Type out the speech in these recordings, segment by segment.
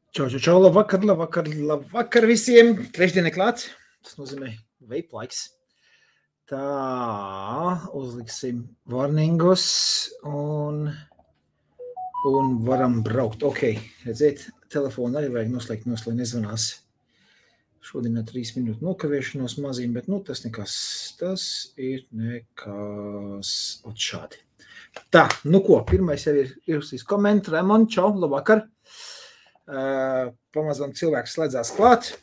Čau, labvakar visiem. Trešdiena klāt. Tas nozīmē vape laiks. Tā, uzliksim warningus un varam braukt. Ok, redziet, telefonu arī vajag noslēgt, nezvanās. Šodien 3 minūtu nokavēšanos mazīm, bet tas nekas. Tas ir nekas. Ot šādi. Tā, ko, pirmais jau ir ierakstījis komentu. Raimond, čau, labvakar. Pamazām cilvēks slēdzās klāt.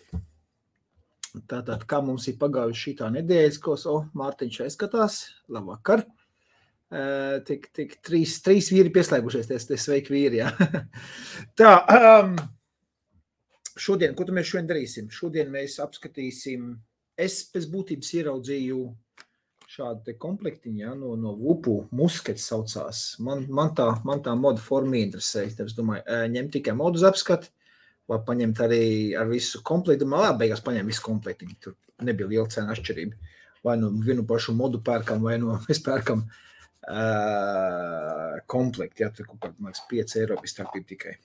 Tātad, kā mums ir pagājuši šitā nedēļas, ko Mārtiņš aizskatās, labvakar. Tik trīs vīri pieslēgušies, tie sveiki vīri, jā. Tā, šodien, ko mēs šodien darīsim? Šodien mēs apskatīsim, es pēc būtības ieraudzīju šādu te komplektiņu, jā, no Vupu, muskets saucās. Man tā moda forma interesē. Es domāju, ņemt tikai modus apskati, vai paņemt arī ar visu komplektu. Man beigās paņem visu komplektiņu. Tur nebija liela cena atšķirība. Vai no vienu pašu modu pērkam, vai no mēs pērkam komplektu. Jā, tur kaut kādā, man liekas, 5 eiro bija starpība tikai.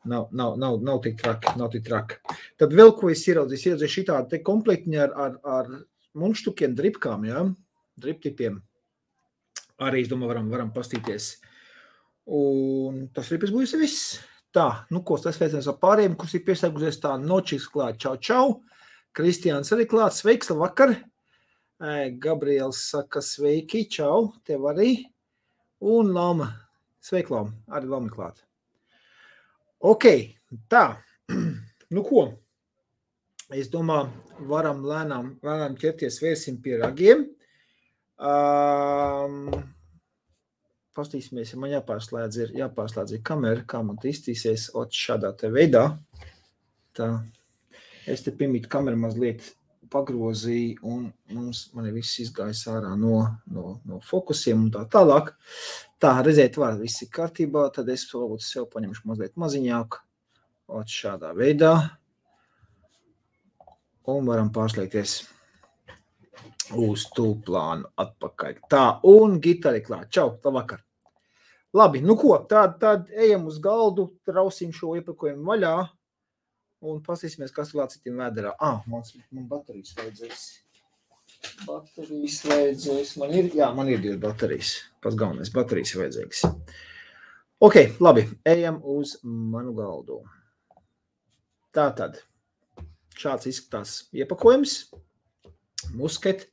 Nav tik traki. Tad vēl, ko es ieraudzīju šitādu te komplektiņu ar munštukiem, dripkām, jā, driptipiem. Arī, es domāju, varam pastīties. Un tas arī būs viss. Tā, ko tas sveiciens ar pārējiem, kurš ir pieslēgusies tā nočiks klāt. Čau. Kristiāns arī klāt. Sveiks, labvakar. Gabriels saka sveiki, čau, tev arī. Un Lama. Sveik, Lama. Arī Lama klāt. Ok, tā. Ko? Es domāju, varam lēnām ķerties, vērsim pie ragiem. Pastīsimies, ja man jāpārslēdz kamera, kā man iztīsies šādā te veidā. Tā, es te piemīt kameru mazliet pagrozīju un man ir viss izgājis ārā no fokusiem un tā tālāk. Tā, redzēt, viss ir kārtībā, tad es varbūt sev paņemšu mazliet maziņāk. Šādā veidā. Un varam pārslēgties uz tūplānu atpakaļ. Tā, un gitari klāt. Čau, labvakar. Labi, ko, tad ejam uz galdu, trausim šo iepakojumu vaļā un pasīsimies, kas vēl citiem vēderā. Man baterijas vajadzēs. Man ir 2 baterijas. Pats galvenais, baterijas vajadzīgas. Ok, labi, ejam uz manu galdu. Tātad. Šāds izskatās iepakojums, musket.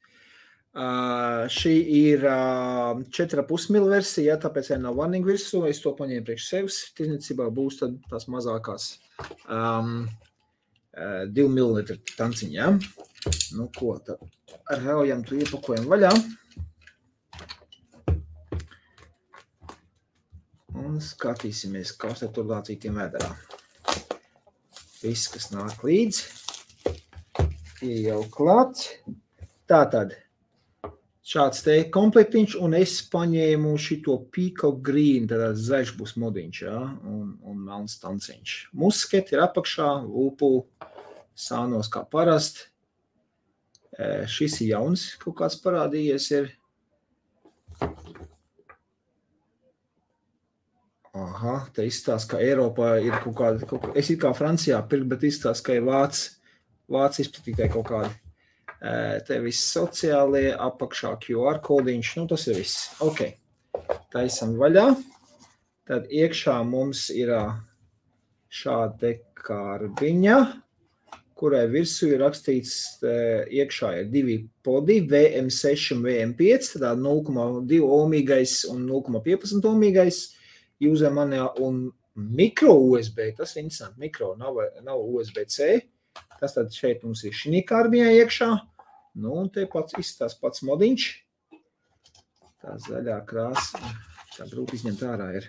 Šī ir 4,5 ml versija, tāpēc nav warning virsū. Es to paņēmu priekš sevis. Tirdzniecībā būs tad tās mazākās 2 ml tanciņa. Ja? Ko, tad raujam tu iepakojumu vaļā. Un skatīsimies, kas tur lācītiem vēderā. Viss, kas nāk līdz. Jau klāt. Tātad šāds te komplektiņš un es paņēmu šito Peacock Green, tad zaļš būs modiņš, ja? un melns tanciņš. Musket ir apakšā, Vupu sānos kā parast. Šis ir jauns, kaut kāds parādījies ir. Aha, te izstāsta, ka Eiropā ir kaut kāda, es ir kā Francijā pirkt, bet izstāsta, ka ir Vācis izplatītāji kaut kādi. Te viss sociālie, apakšā QR kodiņš, tas ir viss. Ok, taisam vaļā. Tad iekšā mums ir šāda karbiņa, kurai virsū ir rakstīts, iekšā ir 2 podi, VM6 un VM5, tad 0,2 ohmīgais un 0,15 ohmīgais. User manuāl un mikro USB, tas ir interesanti, mikro, nav USB-C. Tas tad šeit mums ir šī kārbiņā iekšā. Un te izstās pats modiņš. Tā zaļā krāsa, tā grūti izņemt ārā ir.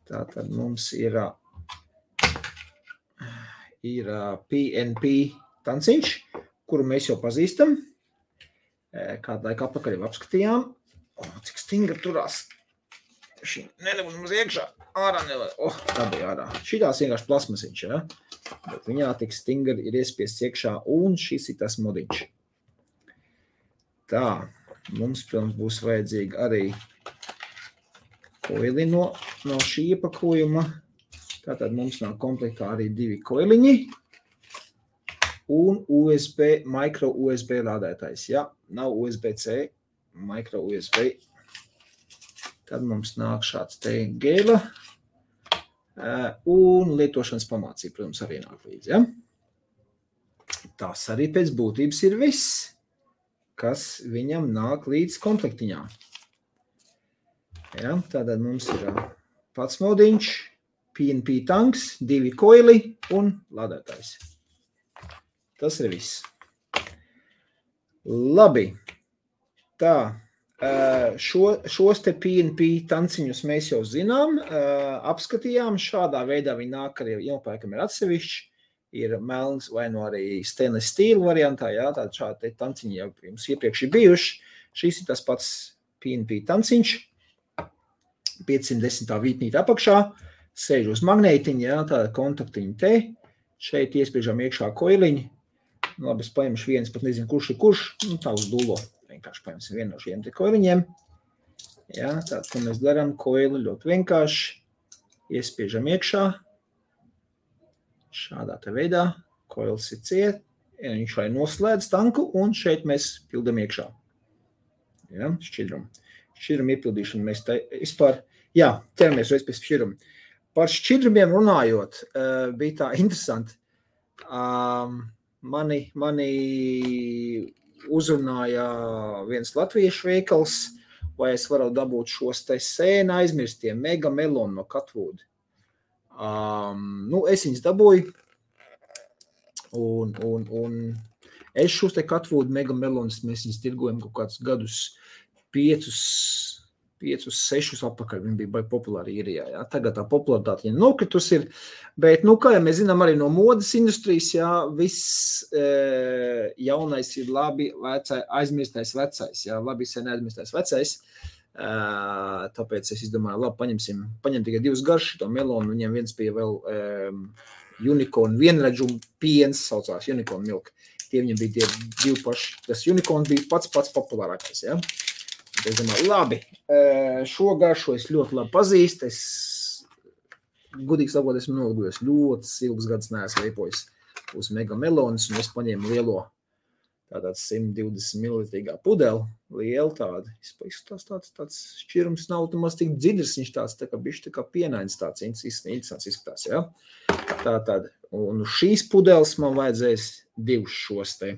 Tā tad mums ir PNP tanciņš, kuru mēs jau pazīstam. Kādu laiku apakaļ jau apskatījām. Cik stingri turās. Šī nedabūs mums iekšā. Ārā nevar. Tā bija ārā. Šitās vienkārši plasmasiņš, ja? Bet viņā tik stingri ir iespiests iekšā un šis ir tas modiņš. Tā, mums, protams, būs vajadzīga arī koili no šī iepakojuma. Tātad mums nav komplektā arī 2 koiliņi un USB, micro USB lādētājs. Ja nav USB-C, micro USB, tad mums nāk šāds te gēla un lietošanas pamācība, protams, arī nāk līdzi. Ja? Tas arī pēc būtības ir viss, kas viņam nāk līdz komplektiņā. Ja? Tātad mums ir pats modiņš, PNP tanks, 2 koili un lādētājs. Tas ir viss. Labi. Tā, šos te PNP tanciņus mēs jau zinām, apskatījām. Šādā veidā viņi nāk arī iepērkam ir atsevišķi. Ir melns vai no arī stainless steel variantā. Jā, tāda šādi tanciņi jau jums iepriekš ir bijuši. Šis ir tas pats PNP tanciņš. 510. vītnīte apakšā. Sēž uz magnētiņa, jā, tāda kontaktiņa te. Šeit iespiežam iekšā koiliņi. Labi, es paņemšu viens, pat nezinu, kurš ir kurš. Nu, tā uz dulo. Vienkārši paņemsim vienu no šiem te koiliņiem. Jā, tātad, ko mēs darām, koili ļoti vienkārši. Iespiežam iekšā. Šādā te veidā. Koils ir ciet. Viņš vai noslēdz tanku un šeit mēs pildam iekšā. Jā, šķidrumu. Šķidrumu iepildīšanu mēs te vispār, jā, ķeramies reiz pēc šķidrumu. Par šķidrumiem runājot, bija tā interesanti. Mani uzrunāja viens latviešu veikals, vai es varu dabūt šos te sēna aizmirstie mega melonu no Catwood. Es viņus dabūju, un es šos te Catwood mega melonus, mēs viņus tirgojam kaut kādus gadus 5-6 apakaļ, viņi bija baigi populāri īrijā, jā. Tagad tā popularitāte viņa nokritus ir, bet, kā jau mēs zinām arī no modes industrijas, jā, viss jaunais ir labi aizmirstais vecais, jā, labi sen aizmirstais vecais, tāpēc es izdomāju, labi, paņem tikai 2 garši to melonu, viņiem viens bija vēl unicorn vienredžu piens, saucās unicorn milk, tie viņiem bija tie 2 paši, tas unicorn bija pats populārākais, jā. Es domāju, labi, šo garšu es ļoti labi pazīstu, es gudīgi sakot, esmu noligujies ļoti ilgus gadus neesmu veipojis uz mega melonus, un es paņēmu lielo tātad 120 ml pudeli, lielu tādu, tāds šķirums nav maz tik dzidrs, viņš tāds tā kā bišķi tā kā pienains tāds interesants izskatās, jā. Tātad, un šīs pudeles man vajadzēs 2 šos te.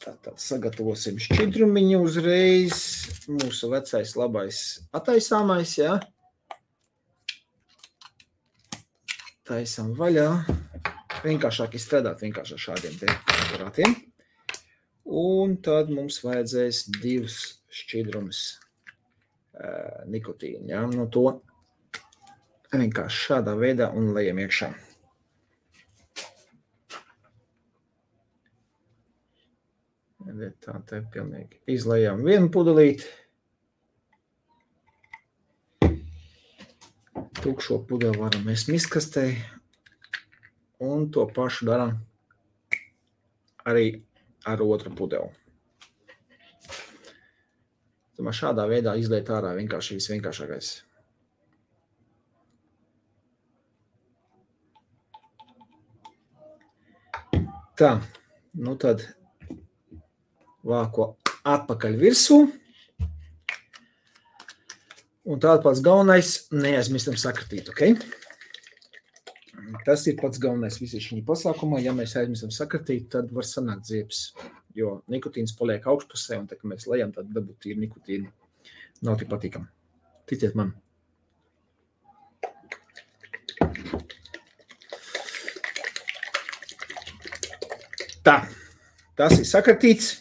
Tātad sagatavosim šķidrumiņu uzreiz. Mūsu vecais labais attaisāmais, jā. Taisam vaļā. Vienkāršāk izstrādāt vienkārši ar šādiem te aparātiem. Un tad mums vajadzēs 2 šķidrumus nikotīnu, jā. No to vienkārši šādā veidā un lejam iekšā. Tā te pilnīgi izlējām vienu pudelīti. Tukšo pudeli varam mēs miskastē. Un to pašu darām arī ar otru pudeli. Tomēr šādā veidā izliet ārā vienkārši visvienkāršākais. Tā, tad vāko atpakaļ virsū. Un tāda pats galvenais neaizmirstam sakratīt, ok? Tas ir pats galvenais visi šī pasākumā. Ja mēs aizmirstam sakratīt, tad var sanākt ziepes, jo nikotīns paliek augšpusē, un tā, ka mēs lejam, tad dabūt tīri nikotīnu. Nav tik patīkam. Ticiet man. Tā, tas ir sakratīts.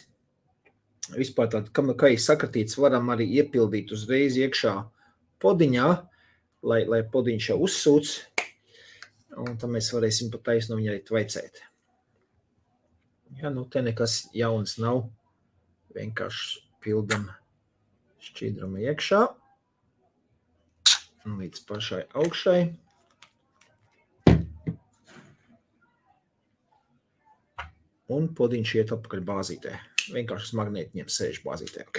Vispār tād, kā ir sakratīts, varam arī iepildīt uzreiz iekšā podiņā, lai podiņš jau uzsūc, un tad mēs varēsim pat taisno viņu arī tvaicēt. Ja, te nekas jauns nav, vienkārši pildam šķidrumu iekšā, un līdz pašai augšai. Un podiņš iet apakaļ bāzītē. Vienkārši uz magnētiņiem sēž bāzītē, ok?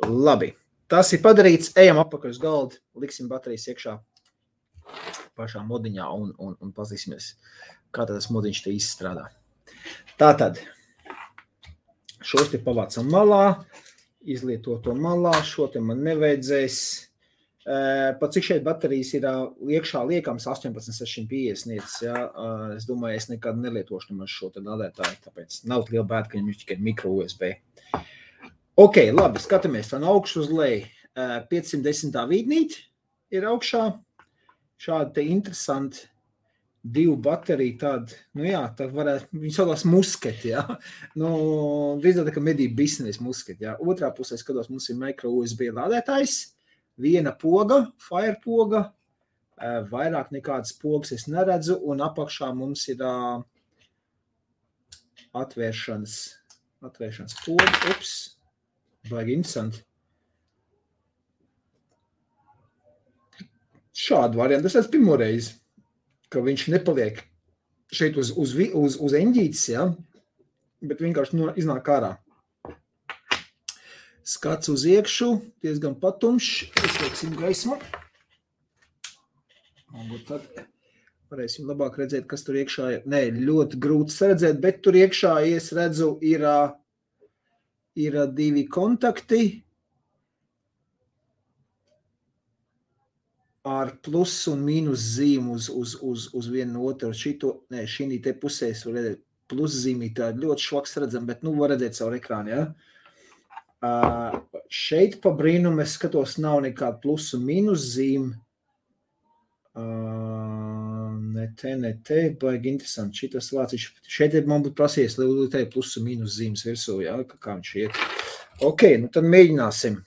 Labi, tas ir padarīts, ejam apakaļ uz galdu, liksim baterijas iekšā. pašā modiņā un pazīsimies, kā tas modiņš te izstrādā. Tātad, šos te pavācam malā, izlieto to malā, šo te man nevajadzēs. Pat cik šeit baterijas ir iekšā liekams 18650 nieces, ja? Es domāju, es nekad nelietošu nemaz šo te lādētāju, tāpēc nav liela bēda, ka viņam ir tikai micro USB. Ok, labi, skatāmies tā no augšu uz leju. 510. vīdnīti ir augšā. Šādi te interesanti 2 bateriju tādi, nu jā, tā varētu, viņi saucās musketi, jā. Nu, drīzāk tā kā medību biznesa musketi, jā. Otrā pusē skatos, mums ir micro USB lādētājs. Viena poga, fire poga, vairāk nekādas pogas es neredzu, un apakšā mums ir atvēršanas poga. Ups, baigi interesanti. Šādu variantu, tas pirmo reizi, ka viņš nepaliek šeit uz eņģītes, ja? Bet vienkārši iznāk ārā. Skats uz iekšu, diezgan patumšs, izlieksim gaismu. Un tad varēsim labāk redzēt, kas tur iekšā ir. Nē, ļoti grūti redzēt, bet tur iekšā, es redzu, ir 2 kontakti ar plus un mīnus zīmu uz vienu otru. Šī te pusē var redzēt plus zīmī, tā ļoti švaks redzam, bet var redzēt savu ekrānu, ja? Šeit pa brīnumu es skatos, nav nekāda plus un mīnus zīme. Ne te, baigi interesanti. Šitas vāciņš. Šeit man būtu prasies, lai te plus un mīnus zīmes virsū, ja? Kā viņš iet. Ok, nu tad mēģināsim.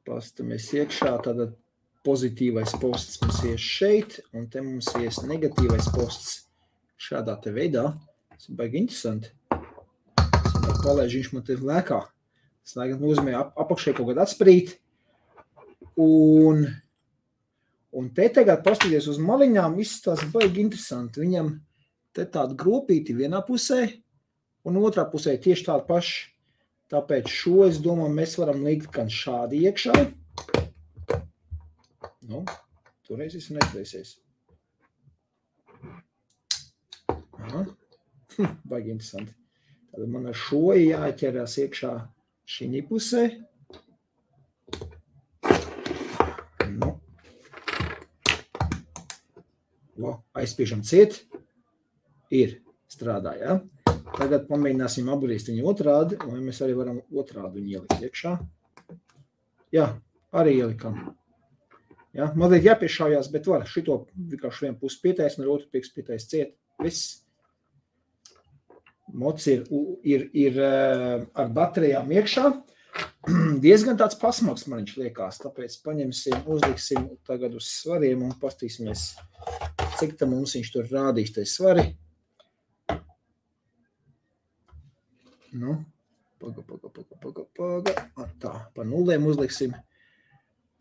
Pastamies iekšā, tāda pozitīvais posts mums ies šeit, un te mums ies negatīvais posts šādā te veidā. Tas ir baigi interesanti. Palēž, viņš man te lēkā. Tas laikam nozīmē apakšē kaut kādā atsprīt. Un te tagad paskatīties uz maliņām, viss tās baigi interesanti. Viņam te tāda gropīti vienā pusē un otrā pusē tieši tāda paša. Tāpēc šo, es domāju, mēs varam likt gan šādi iekšā. Nu, toreiz esmu neizliesies. Aha, baigi interesanti. Tad man ar šo jāķerās iekšā šī pusē. Nu. Aizspiežam ciet. Ir strādā, ja? Tagad pamēģināsim apgriezt viņu otrādi, vai mēs arī varam otrādi viņu ielikt iekšā. Jā, arī ielikam. Ja? Mazliet jāpiešājās, bet var šito vienkārši vienu pusi pietais, un ar otru pietais ciet. Viss. Mods ir ar baterijām iekšā. Diezgan tāds pasmaks man viņš liekās, tāpēc uzliksim tagad uz svariem un pastīsimies, cik tam mums viņš tur rādīs tai svari. Nu, paga. Tā, pa nulēm uzliksim.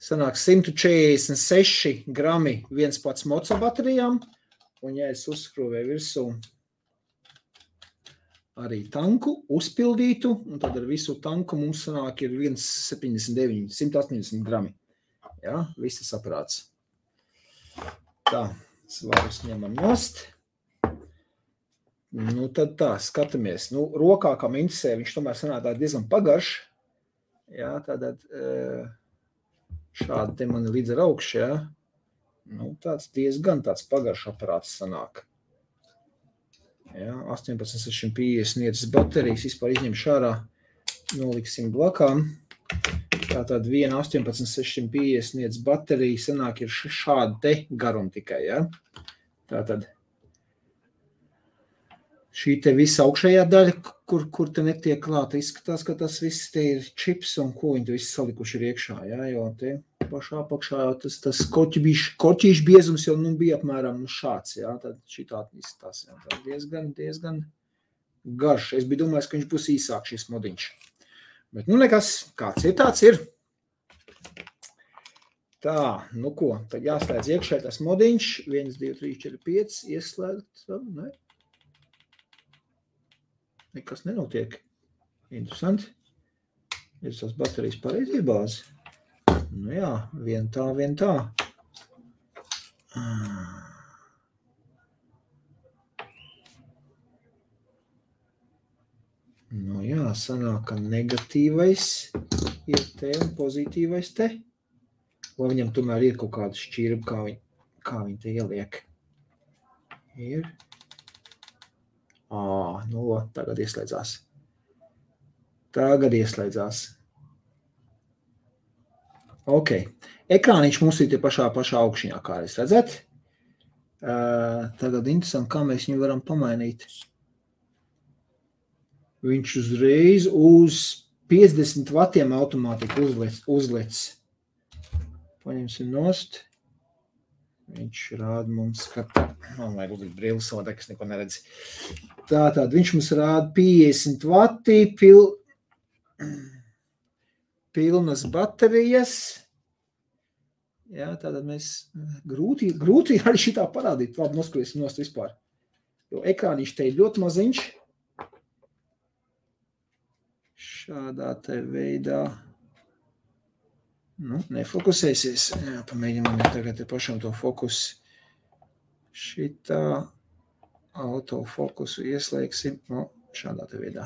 Sanāk 146 grami viens pats moca baterijām, un ja es uzskrūvēju virsū arī tanku uzpildītu, un tad ar visu tanku mums sanāk ir 179, 180 grami. Ja, viss saprāts. Tā, svarus ņemam nost. Nu, tad tā, skatāmies. Nu, rokā, kā interesē, viņš tomēr sanāk diezgan pagarš. Ja, tātad šādi te man līdz ar augšu, ja. Nu, tāds diezgan tāds pagarš aparāts sanāk. Ja, 18650 nieces baterijas, vispār izņemšu ārā, noliksim blakām. Tātad viena 18650 nieces baterija sanāk ir šāda te garuma tikai, ja. Tātad šī te visa augšējā daļa, kur te netiek klāta, izskatās, ka tas viss te ir čips un ko viņi te viss salikuši ir iekšā, ja, jo te pašā apakšā tas korķīšu biezums jau bija apmēram šāds, ja, tad šitādi izskatās, ja, tā diezgan garš. Es biju domājis, ka viņš būs īsāk šis modiņš. Bet nu nekas, kāds ir, tāds ir. Tā, nu ko, tad jāslēdz iekšē tas modiņš, 1, 2, 3, 4, 5, ieslēgt, ne? Nekas nenotiek. Interesanti. Ir tās baterijas pareizie bāzi. Nu jā, vien tā. Nu jā, sanāk, ka negatīvais ir te un pozitīvais te. Vai viņam tomēr ir kaut kāda šķirba, kā viņi te ieliek? Ir. Nu, tagad ieslēdzās. Ok. Ekrāniņš mums ir tie pašā augšņā, kā jūs redzat. Tagad interesanti, kā mēs viņu varam pamainīt. Viņš uzreiz uz 50 vatiem automātiski uzlec. Paņemsim nost. Viņš rāda mums, ka man vajag uzlikt brilles savādāk, es neko neredzu. Tātad viņš mums rāda 50 vati, pilnas baterijas. Jā, tātad mēs grūti arī šitā parādīt. Labi, noskriesim nost vispār. Jo ekrāniņš te ir ļoti maziņš. Šādā te veidā. Nu, nefokusēsies. Jā, pamēģinām tagad te pašam to fokusu. Šitā autofokusu ieslēgsim. Nu, šādā te veidā.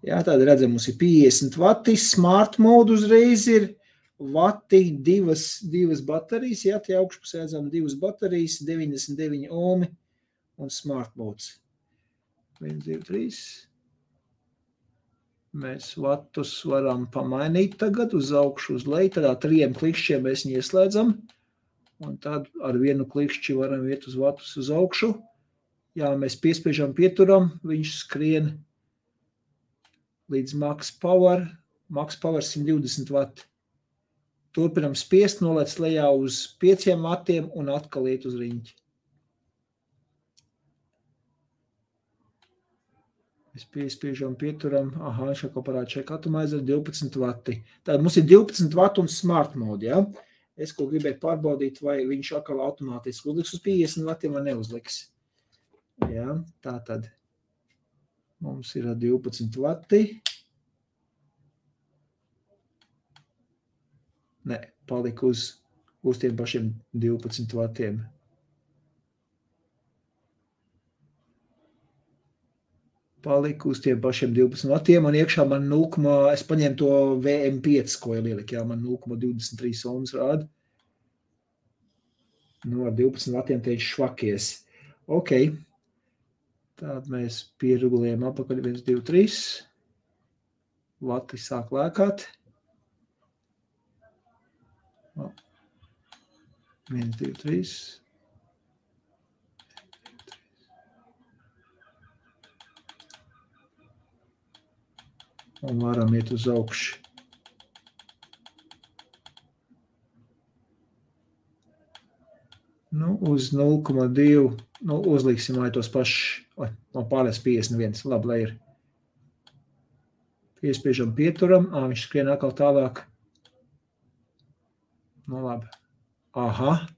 Jā, tāda redzam, mums ir 50 vati. Smart mode uzreiz ir vati, divas baterijas. Jā, tie augšpusē redzam 2 baterijas, 99 ohmi un smart modes. 1, 2, 3. Mēs vatus varam pamainīt tagad uz augšu, uz leju. Tādā 3 klikšķiem mēs viņu ieslēdzam. Un tad ar vienu klikšķi varam iet uz vatus uz augšu. Jā, mēs piespiežam pieturam, viņš skrien līdz max power 120 vati. Turpinam spiest, nolec lejā uz 5 vatiem un atkal iet uz riņķi. Mēs piespiežam, pieturam, šako parāda šeit atomizer 12 vati. Tātad mums ir 12 vati un smart mode, ja? Es ko gribēju pārbaudīt, vai viņš atkal automātiski uzliks uz 50 vatiem vai neuzliks. Ja? Tātad mums ir 12 vati. Ne, palika uz tiem pašiem 12 vatiem. Paliku uz tiem pašiem 12 vatiem, un iekšā man es paņēmu to VM5, ko ieliek, jā, man 0,23 ohms rāda. Nu, ar 12 vatiem te viņš švakies. Ok. Tātad mēs pieregulējam apakaļ 1, 2, 3. Vati sāk lēkāt. 1, 2, 3. Un varam iet uz augšu. Nu, uz 0,2, nu, uzliksim vai tos pašus, man pārliec 51, labi, lai ir. Piespiežam pieturam, viņš skrien atkal tālāk. Nu, labi.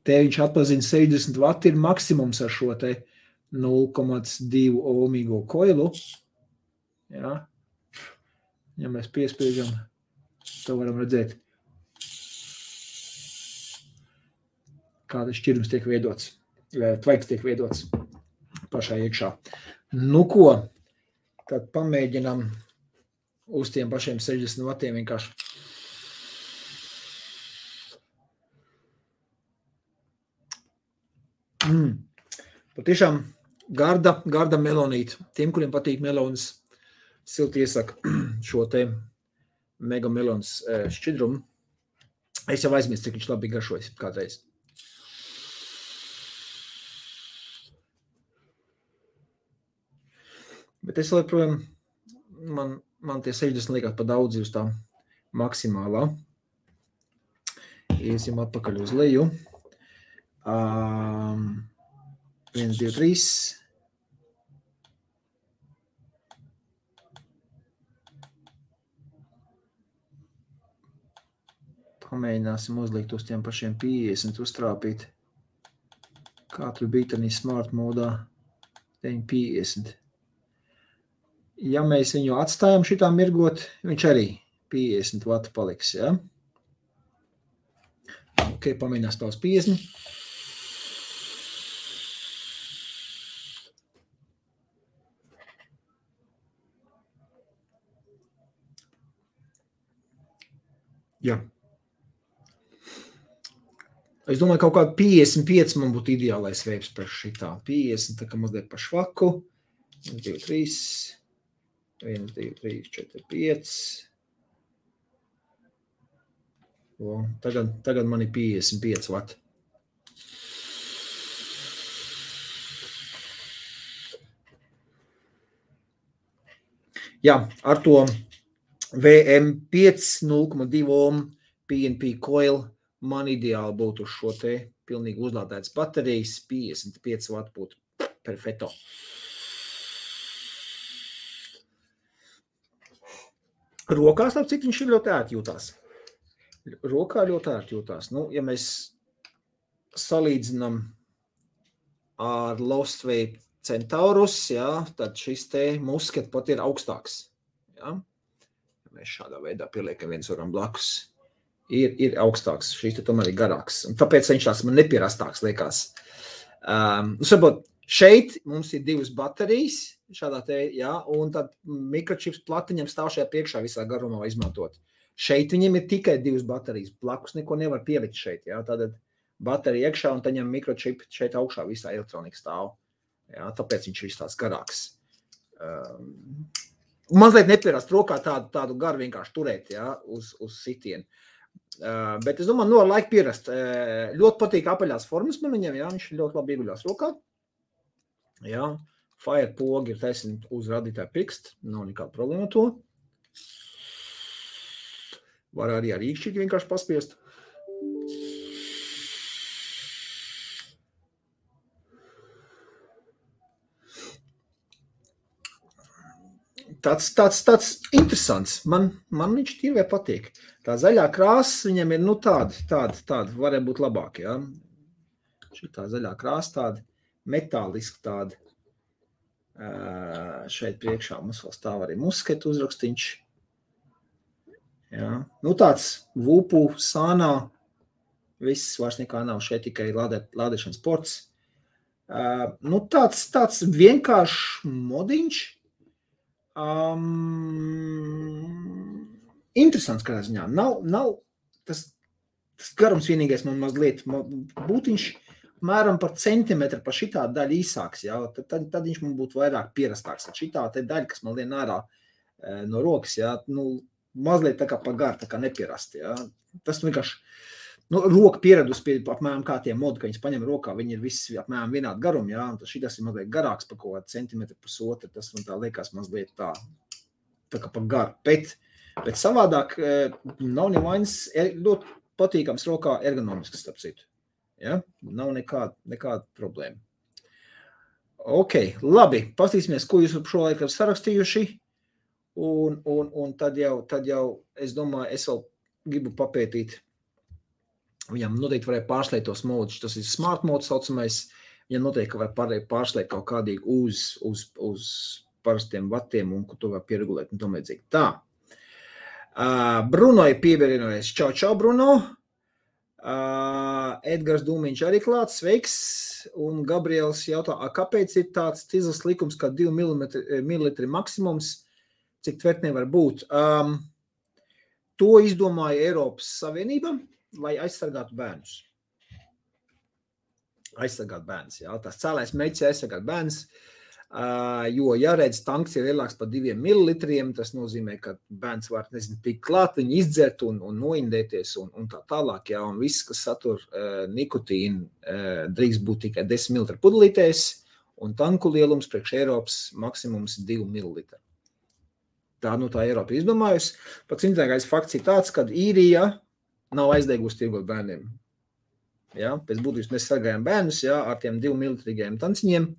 Te viņš atpazina 60 vati ir maksimums ar šo te 0,2 ohmīgo koilu. Jā. Ja mēs piespiežam, to varam redzēt, kāda šķirums tiek veidots, tvaiks tiek veidots pašā iekšā. Nu ko, tad pamēģinam uz tiem pašiem 60 vatiem vienkārši. Patiešām garda melonīta. Tiem, kuriem patīk melonas, silti iesaka šo te megamelons šķidrumu. Es jau aizmirstu, cik viņš labi garšojas kādreiz. Bet es joprojām, man tie 60 liekas pa daudz uz tā maksimālā. Iesim atpakaļ uz leju. 1, 2, 3. Pamēģināsim uzlikt uz tiem pašiem 50, uztrāpīt. Kā tur bija tādā smart modā 50. Ja mēs viņu atstājam šitā mirgot, viņš arī 50 vati paliks, ja? Ok, pamēģinās tā uz 50. Jā. Es domāju, kaut kādu 55 man būtu ideālais veips par šitā. 50, tā kā mazliet par švaku. 1, 2, 3. 1, 2, 3, 4, 5. O, tagad man ir 55 vati. Jā, ar to VM5 0,2 ohm PNP coil man ideāli būtu uz šo te pilnīgi uzlādētas baterijas. 55 vati būtu perfekto. Rokās, ap cik viņš ir ļoti ērti jūtās. Rokā ļoti ērti jūtās. Nu, ja mēs salīdzinām ar Lost Vape Centaurus, jā, tad šis te musket pat ir augstāks. Jā. Mēs šādā veidā pieliekam viens varam blakus. Ir augstāks, šīs te tomēr ir garāks. Un tāpēc viņš tās man nepierastāks liekas. Saprot, šeit mums ir 2 baterijas, šādā te, jā, un tad mikročips platiņam stāv šajā priekšā visā garumā izmantot. Šeit viņam ir tikai 2 baterijas, blakus neko nevar pielikt šeit, jā, tātad baterija iekšā un taņem mikročipi šeit augšā visā elektronika stāv. Jā, tāpēc viņš ir tās garāks. Mazliet nepierast rokā tādu garu vienkārši turēt, jā, uz sitienu. Bet es domāju, ar laiku pierast. Ļoti patīk apaļās formas man viņam, jā, viņš ļoti labi ieguļās rokā. Jā, fire pogi ir taisni uz radītāju pirkst, nav nekāda problēma to. Var arī ar īkšķīgi vienkārši paspiest. Tāds interesants. Man viņš tīvē patīk. Tā zaļā krāsa viņam ir, tāda varētu būt labāk, jā. Šitā zaļā krāsa tāda, metāliska tāda. Šeit priekšā mums vēl stāv arī musket uzrakstiņš. Jā. Nu, tāds vupu, sānā, viss vairs nekā nav. Šeit tikai lādēšanas ports. Nu, tāds vienkāršs modiņš. Interesants kādā ziņā. Nav tas garums vienīgais man mazliet būtiņš mēram par centimetru par šitā daļa īsāks, jā, tad viņš man būtu vairāk pierastāks. Šitā te daļa, kas man lien ārā no rokas, jā, nu, mazliet tā kā pa garu, tā kā nepierasti, jā. Tas vienkārši, nu, roka pieredus pie apmēram kā tie modi, ka viņas paņem rokā, viņi ir visi apmēram vienādi garumi, jā, un šitas ir mazliet garāks par kaut kādu centimetru pusotru, tas man tā liekas mazliet tā kā pa garu, bet savādāk nav nevainas, ļoti patīkams rokā ergonomisks, starp citu. Ja? Nav nekāda problēma. Ok, labi, pastīsimies, ko jūs šo laiku ir sarakstījuši, un tad jau, es domāju, es vēl gribu papētīt, viņam noteikti varēja pārslēt tos modus, tas ir smart mode saucamais, viņam noteikti var pārslēt kaut kādīgi uz parastiem vatiem, un ko to var pieregulēt, un tomēdzīgi. Tā, Bruno ir pievienojies, čau, Bruno. Edgars Dūmiņš arī klāts, sveiks, un Gabriels jautā, kāpēc ir tāds cizls likums, kā 2 ml maksimums, cik tvertnē var būt? To izdomāja Eiropas Savienība, lai aizsargātu bērnus. Aizsargāt bērnus, jā, tās cēlais mērķis aizsargāt bērnus, jo, ja redz, tanks ir lielāks par 2 ml, tas nozīmē, ka bērns var, tik klāt viņu izdzert un noindēties un tā tālāk, jā, un viss, kas satur nikotīnu, drīkst būt tikai 10 ml pudelītēs, un tanku lielums priekš Eiropas maksimums 2 ml. Tā Eiropa izdomājusi. Pats interesantākais fakts ir tāds, ka Īrija nav aizdegusi tirgot bērniem. Jā, pēc būtības mēs sargājam bērnus, jā, ar tiem 2 ml tanciņiem.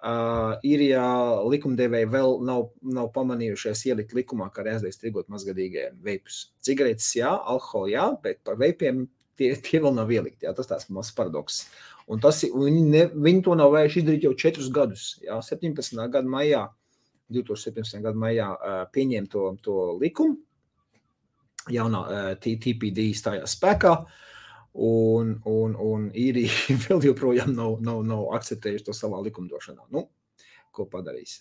Īrijā likumdevēji vēl nav pamanījušies ielikt likumā, kā arī aizliedz tirgot mazgadīgajiem veipus. Cigaretes, jā, alkoholu, jā, bet par veipiem tie vēl nav ielikti, jā, tas tās mazs paradoks. Un viņi to nav vērši izdarīt jau 4 gadus, jā, 2017. gada maijā pieņēma to likumu, jaunā TPD stājās spēkā, un Īrija vēl joprojām nav akceptējuši to savā likumdošanā. Nu, ko padarīs?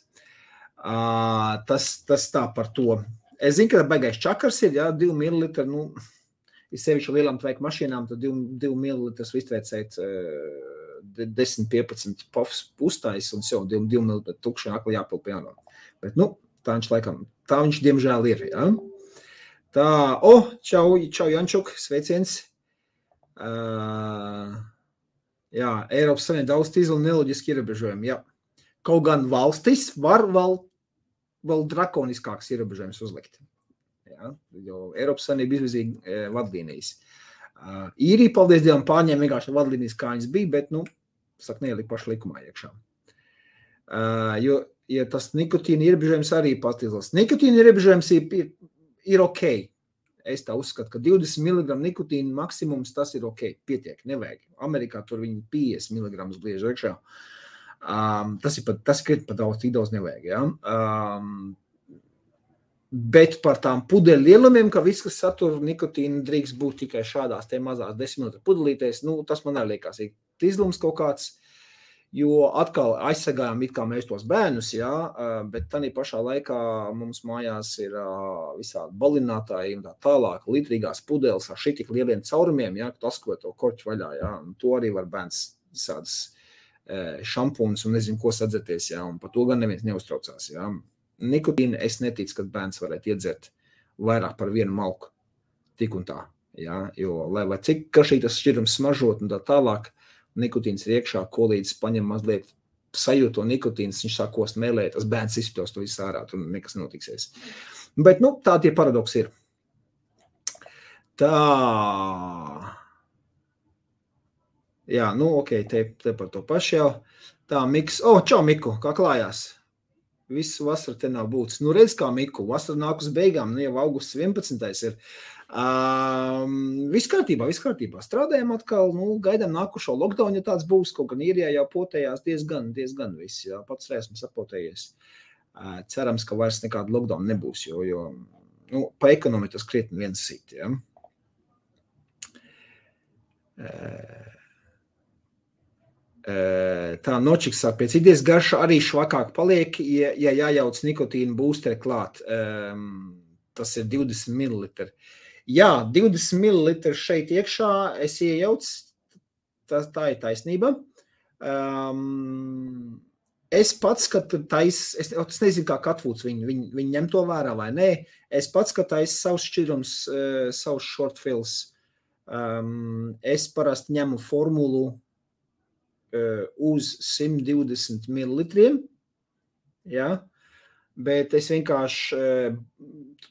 Tas tā par to. Es zinu, ka baigais čakars ir, jā, 2 ml, nu, ir sevišķi lielām tveika mašīnām, tad 2 mililitrus iztveicēt 10-15 pofs uztais un jau 2 mililitru tukši akli jāpilp jāno. Bet, tā viņš diemžēl ir, jā. Tā, čau Jančuk, sveiciens. Jā, Eiropas Savienība daudz tīzli neloģiski ierobežojumi, jā. Kaut gan valstis var vēl drakoniskāks ierobežojums uzlikt. Ja, jo Eiropas Savienība izvirzīja vadlīnijas. Īrija, paldies Dievam, pārņēma vienkārši vadlīnijas, kā viņas bija, bet, neielika paši likumā iekšā. Jo tas nikotīna ierobežojums arī patīzlas. Nikotīna ierobežojums ir ok. Es tā uzskatu, ka 20 mg nikotīna maksimums tas ir ok, pietiek, nevajag. Amerikā tur viņi 50 mg gliež iekšā. Tas ir pat daudz nevajag, ja? Bet par tām pudeļu lielumiem, ka viss, kas satur nikotīnu, drīkst būt tikai šādās te mazās 10 ml pudelītēs, tas man arī liekas, ir tīzlums kaut kāds, jo atkal aizsagājām it kā mēs tos bērnus, jā, bet tādā pašā laikā mums mājās ir visādi balinātāji un tā tālāk, litrīgās pudeles ar šitik lieliem caurumiem, jā, kad asko to korķu vaļā, jā, un to arī var bērns visādas šampūnas un nezinu, ko sadzerties, jā, un par to gan neviens neuztraucās, jā. Nikotīnu es neticu, ka bērns varētu iedzert vairāk par vienu malku, tik un tā, jā, jo, lai cik kašī tas šķirums smažot un tā tālāk, nikotīns ir iekšā, ko līdz paņem mazliet sajūto nikotīns, viņš sāk kost mēlēt, tas bērns izspļaus to visu ārā, tur nekas notiksies. Bet, tā tie paradoksi ir. Tā. Jā, ok, te par to pašu jau. Tā, Miks. Čau, Miku, kā klājās? Visu vasaru te nav būtis. Redz kā, Miku, vasara nāk uz beigām, jau augusts 11. ir. Viss kārtībā. Strādājam atkal, gaidām nākušo lockdown, ja tāds būs, kaut gan Īrijā jau potējās diezgan viss, jā, pats esmu sapotējies. Cerams, ka vairs nekāda lockdown nebūs, jo pa ekonomiku tas krietni viens sit, jā. Tā nočiks sāk pēc idejas garša arī švakāk paliek, ja jājauc nikotīnu būsteri klāt. Tas ir 20 ml. Jā, 20 ml šeit iekšā es iejauc, tā ir taisnība. Es pats, kad es nezinu, kā Katvūts viņi ņem to vērā vai nē, es pats, kad savus šķirums, savus shortfills, es parasti ņemu formulu uz 120 ml, ja? Bet es vienkārši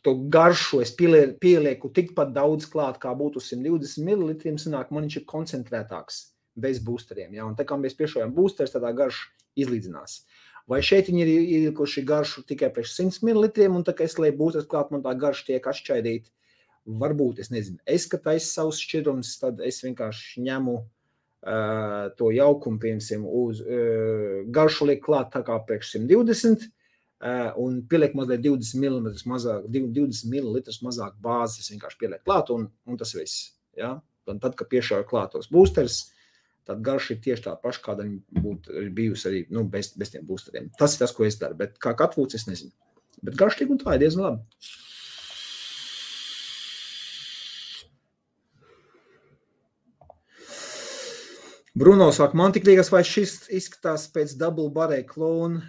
to garšu es pielieku tikpat daudz klāt, kā būtu 120 ml, sanāk, man viņš ir koncentrētāks bez boosteriem, ja? Un tā kā mēs piešojam boosteris, tādā garša izlīdzinās. Vai šeit viņi ir ielikuši garšu tikai priekš 100 ml, un tā kā es lieku boosteris klāt, man tā garša tiek atšķaidīt, varbūt, es nezinu. Es, kad taisa savus šķirums, tad es vienkārši ņemu to jaukumu, piemēram, uz garšu liek klāt tā kā priekš 120 un pieliek mazliet 20 ml mazāk bāzes, vienkārši pieliek klāt un tas viss. Ja? Un tad, kad piešauju klāt tos boosteris, tad garša ir tieši tā paša, kāda viņa būtu bijusi arī bez tiem boosteriem. Tas ir tas, ko es daru, bet kā Katvūts, es nezinu. Bet garša tik un tā ir diezgan labi. Bruno saka, man tik liekas, vai šis izskatās pēc double barrel klona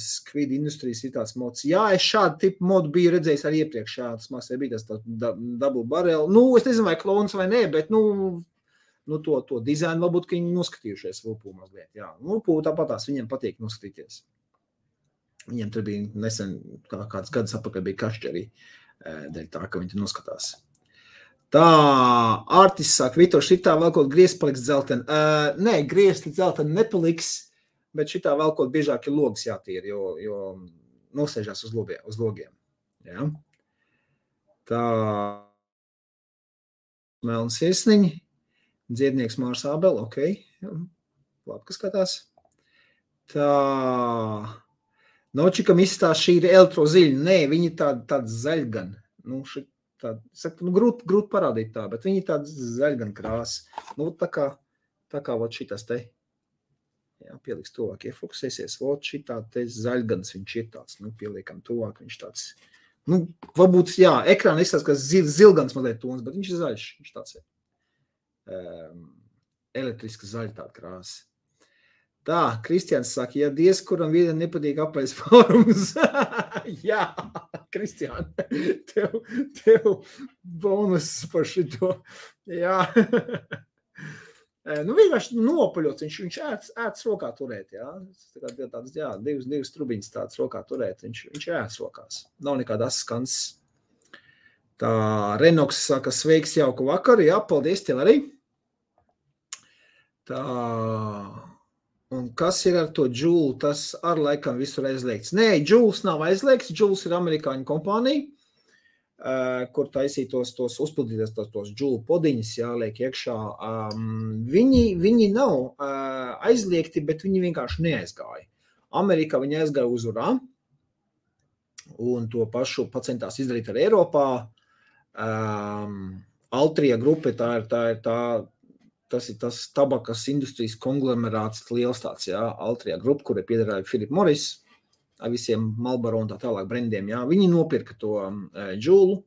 Squid Industries ir tāds mods. Jā, es šādu tipu modu biju redzējis arī iepriekš. Jā, tas māksē bija tas double barrel. Es nezinu, vai klons vai nē, bet to dizainu varbūt, ka viņi noskatījušies Vulpū mazliet. Jā, Vulpū tāpatās viņiem patīk noskatīties. Viņiem tur bija nesen kāds gadus apakaļ bija kašķi arī dēļ tā, ka viņi tur noskatās. Tā, Artis saka, Vitor, šitā vēl kaut griezti paliks dzelteni. Nē, griezti dzelteni nepaliks, bet šitā vēl kaut biežāk ir logas jātīra, jo nosēžās uz logiem. Ja? Tā, Melns iesniņi, dziednieks Mārs Ābel, ok, labi, kas skatās. Tā, Nočikam izstās šī ir elektroziļa, nē, viņi tāda zaļgan, grūti parādīt tā, bet viņi tāda zaļgan krāsa. Tā kā vot šitas te, jā, pieliks tuvāk, iefokusēsies, vot šitā te zaļgans viņš ir tāds, pieliekam tuvāk, viņš tāds Nu, varbūt, jā, ekrāna izskatās, ka zilgans mazliet tons, bet viņš ir zaļš. Viņš tāds ir. Elektriska zaļa tāda krāsa. Tā, Kristians saka, ja diez kuram vienam nepatīk apaļs fórums. Jā, Kristian, tev bonus par šito. Jā. Nu, vienkārši nopaļots, viņš ēts rokā turēt, jā. Tāds, jā, divas trubiņas tāds rokā turēt, viņš ēts rokās. Nav nekāda skans. Tā, Renoks saka, sveiks, jauku vakaru, jā, paldies tev arī. Tā, un kas ir ar to Joule, tas ar laikam visur aizliegts. Nē, Joules nav aizliegts, Joules ir amerikāņu kompānija, kur taisītos tos uzpildīties tos Joule podiņas, jāliek iekšā. Viņi nav aizliegti, bet viņi vienkārši neaizgāja. Amerikā viņi aizgāja uz urā, un to pašu pacentās izdarīt ar Eiropā. Altria grupa, tas ir tas tabakas industrijas konglomerāts liels tāds, jā, Altria grupa, kura piederēja Philip Morris, ar visiem Marlboro un tā tālāk brendiem, jā. Viņi nopirka to Joule,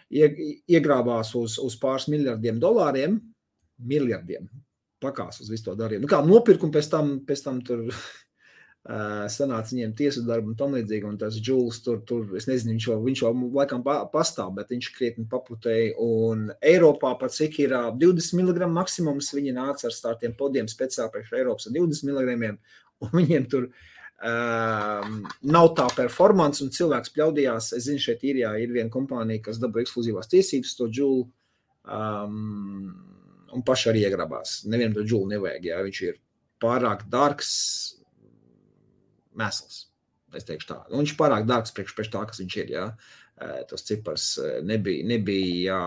iegrābās uz pāris $miljardiem, pakās uz visu to darījumu. Nu kā nopirka un pēc tam tur sanāca viņiem tiesu darbu un tam līdzīgi, un tas Joules tur, es nezinu, viņš jau laikam pastāv, bet viņš krietni paputēja, un Eiropā pat cik ir 20 mg maksimums, viņi nāca ar tādiem podiem speciāli priekš Eiropas ar 20 mg, un viņiem tur nav tā performance, un cilvēks pļaudījās, es zinu, šeit Īrijā ir viena kompānija, kas dabūja ekskluzīvās tiesības to Joule, un paši arī iegrabās. Nevienam to Joule nevajag, jā, viņš ir pārāk dārgs, mēsls, es teikšu tā. Un viņš pārāk dārgs priekš tā, kas viņš ir, jā. Tas cipars nebija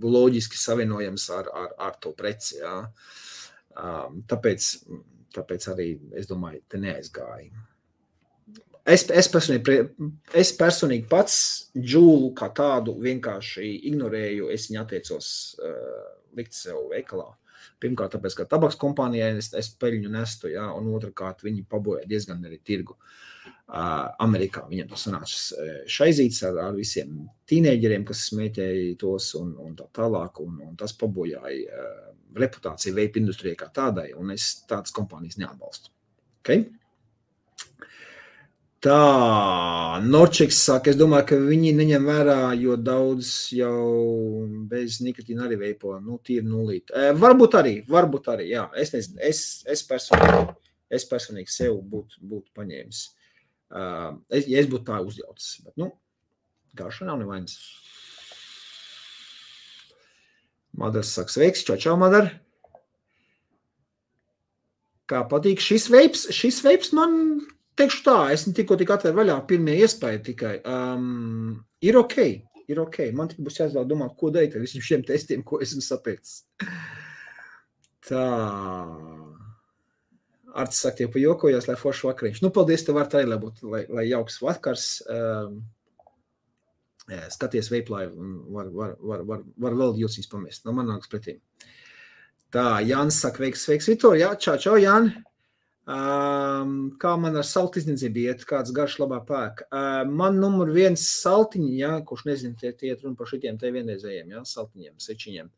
loģiski savienojams ar to preci, jā. Tāpēc arī, es domāju, te neaizgāja. Es personīgi pats Joule kā tādu vienkārši ignorēju, es viņu atteicos likt sev veikalā. Pirmkārt, tāpēc, ka tabaks kompānijai es peļņu nestu, jā, un otrkārt, viņi paboja diezgan arī tirgu. Amerikā viņam tas sanāca šaizīts ar visiem tīneģeriem, kas smēķēja tos un tā tālāk, un tas pabojāja reputāciju vape industrijai kā tādai, un es tādas kompānijas neatbalstu. Okay? Tā, Norčiks saka, es domāju, ka viņi neņem vērā, jo daudz jau bez nikotīna arī veipo, nu, tīri nulīt. Varbūt arī, jā, es nezinu, es personīgi sev būtu paņēmis. Ja es būtu tā uzjaucis, bet, nu, garša nav nevainas. Madars saka, sveiks, čau, Madar. Kā patīk šis veips man... Teikšu tā, es tikko atvēru vaļā pirmie iespēja tikai. Ir ok. Man tikai būs jāizvēl domāt, ko darīt ar visiem šiem testiem, ko esmu sapēcis. Tā. Arts saka, tie pajokojās, lai forši vakariņš. Nu, paldies, tev var tā arī, lai jauks vakars. Skaties veiplai, var vēl jūsīs pamest. No man nāks pretīm. Tā, Jānis saka, sveiks, Vitor. Jā, čau, Jāni. Kā man ar saltu izniecību iet, kāds garš labā pēk. Man numur 1 saltiņi, jā, kurš nezinu, tie iet runa par šitiem te vienreizējiem, jā, saltiņiem, sečiņiem.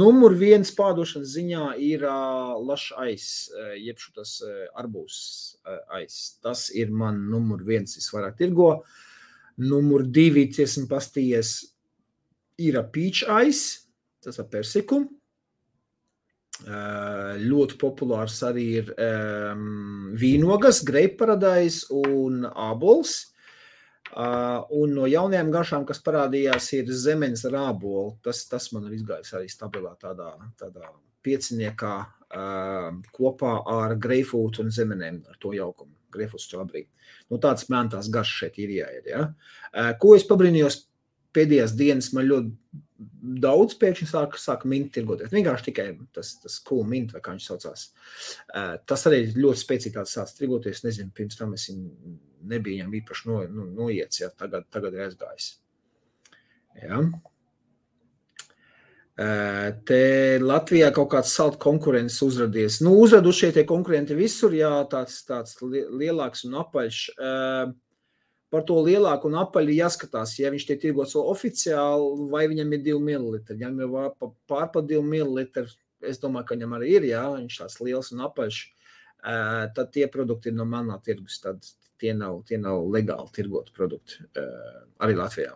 Numur 1 pārdošanas ziņā ir lašs ais, jeb šitas arbūs ais. Tas ir man numur 1 visvairāk tirgo. Numur 2, esmu pastījies, ir peach ais, tas ar persiku. Ļoti populārs arī ir vīnogas, grape paradise un ābols. Un no jaunajām garšām, kas parādījās, ir zemenes ar ābolu. Tas man ir izgājis arī stabilā tādā pieciniekā kopā ar greifrūtu un zemenēm, ar to jaukumu. Greifrūts strawberry. Nu, tāds mēntās garšas šeit ir jāiet, ja? Ko es pabrīnījos pēdējās dienas, man ļoti daudz pēkšņi sāka minti tirgoties. Vienkārši tikai tas cool mint, vai kā viņš saucās. Tas arī ļoti spēcīgi tāds sāc tirgoties. Nezinu, pirms tam es nebija viņam īpaši noiets, ja tagad ir aizgājis. Ja. Te Latvijā kaut kāds salt konkurents uzradies. Nu, uzradušie tie konkurenti visur, jā, tāds lielāks un apaļš. Par to lielāku un apaļu jāskatās, ja viņš tiek tirgots oficiāli, vai viņam ir 2 ml. Ja viņam ir pār 2 ml, es domāju, ka viņam arī ir, jā, viņš tāds liels un apaļš, tad tie produkti ir no manā tirgus, tad tie nav legāli tirgoti produkti, arī Latvijā.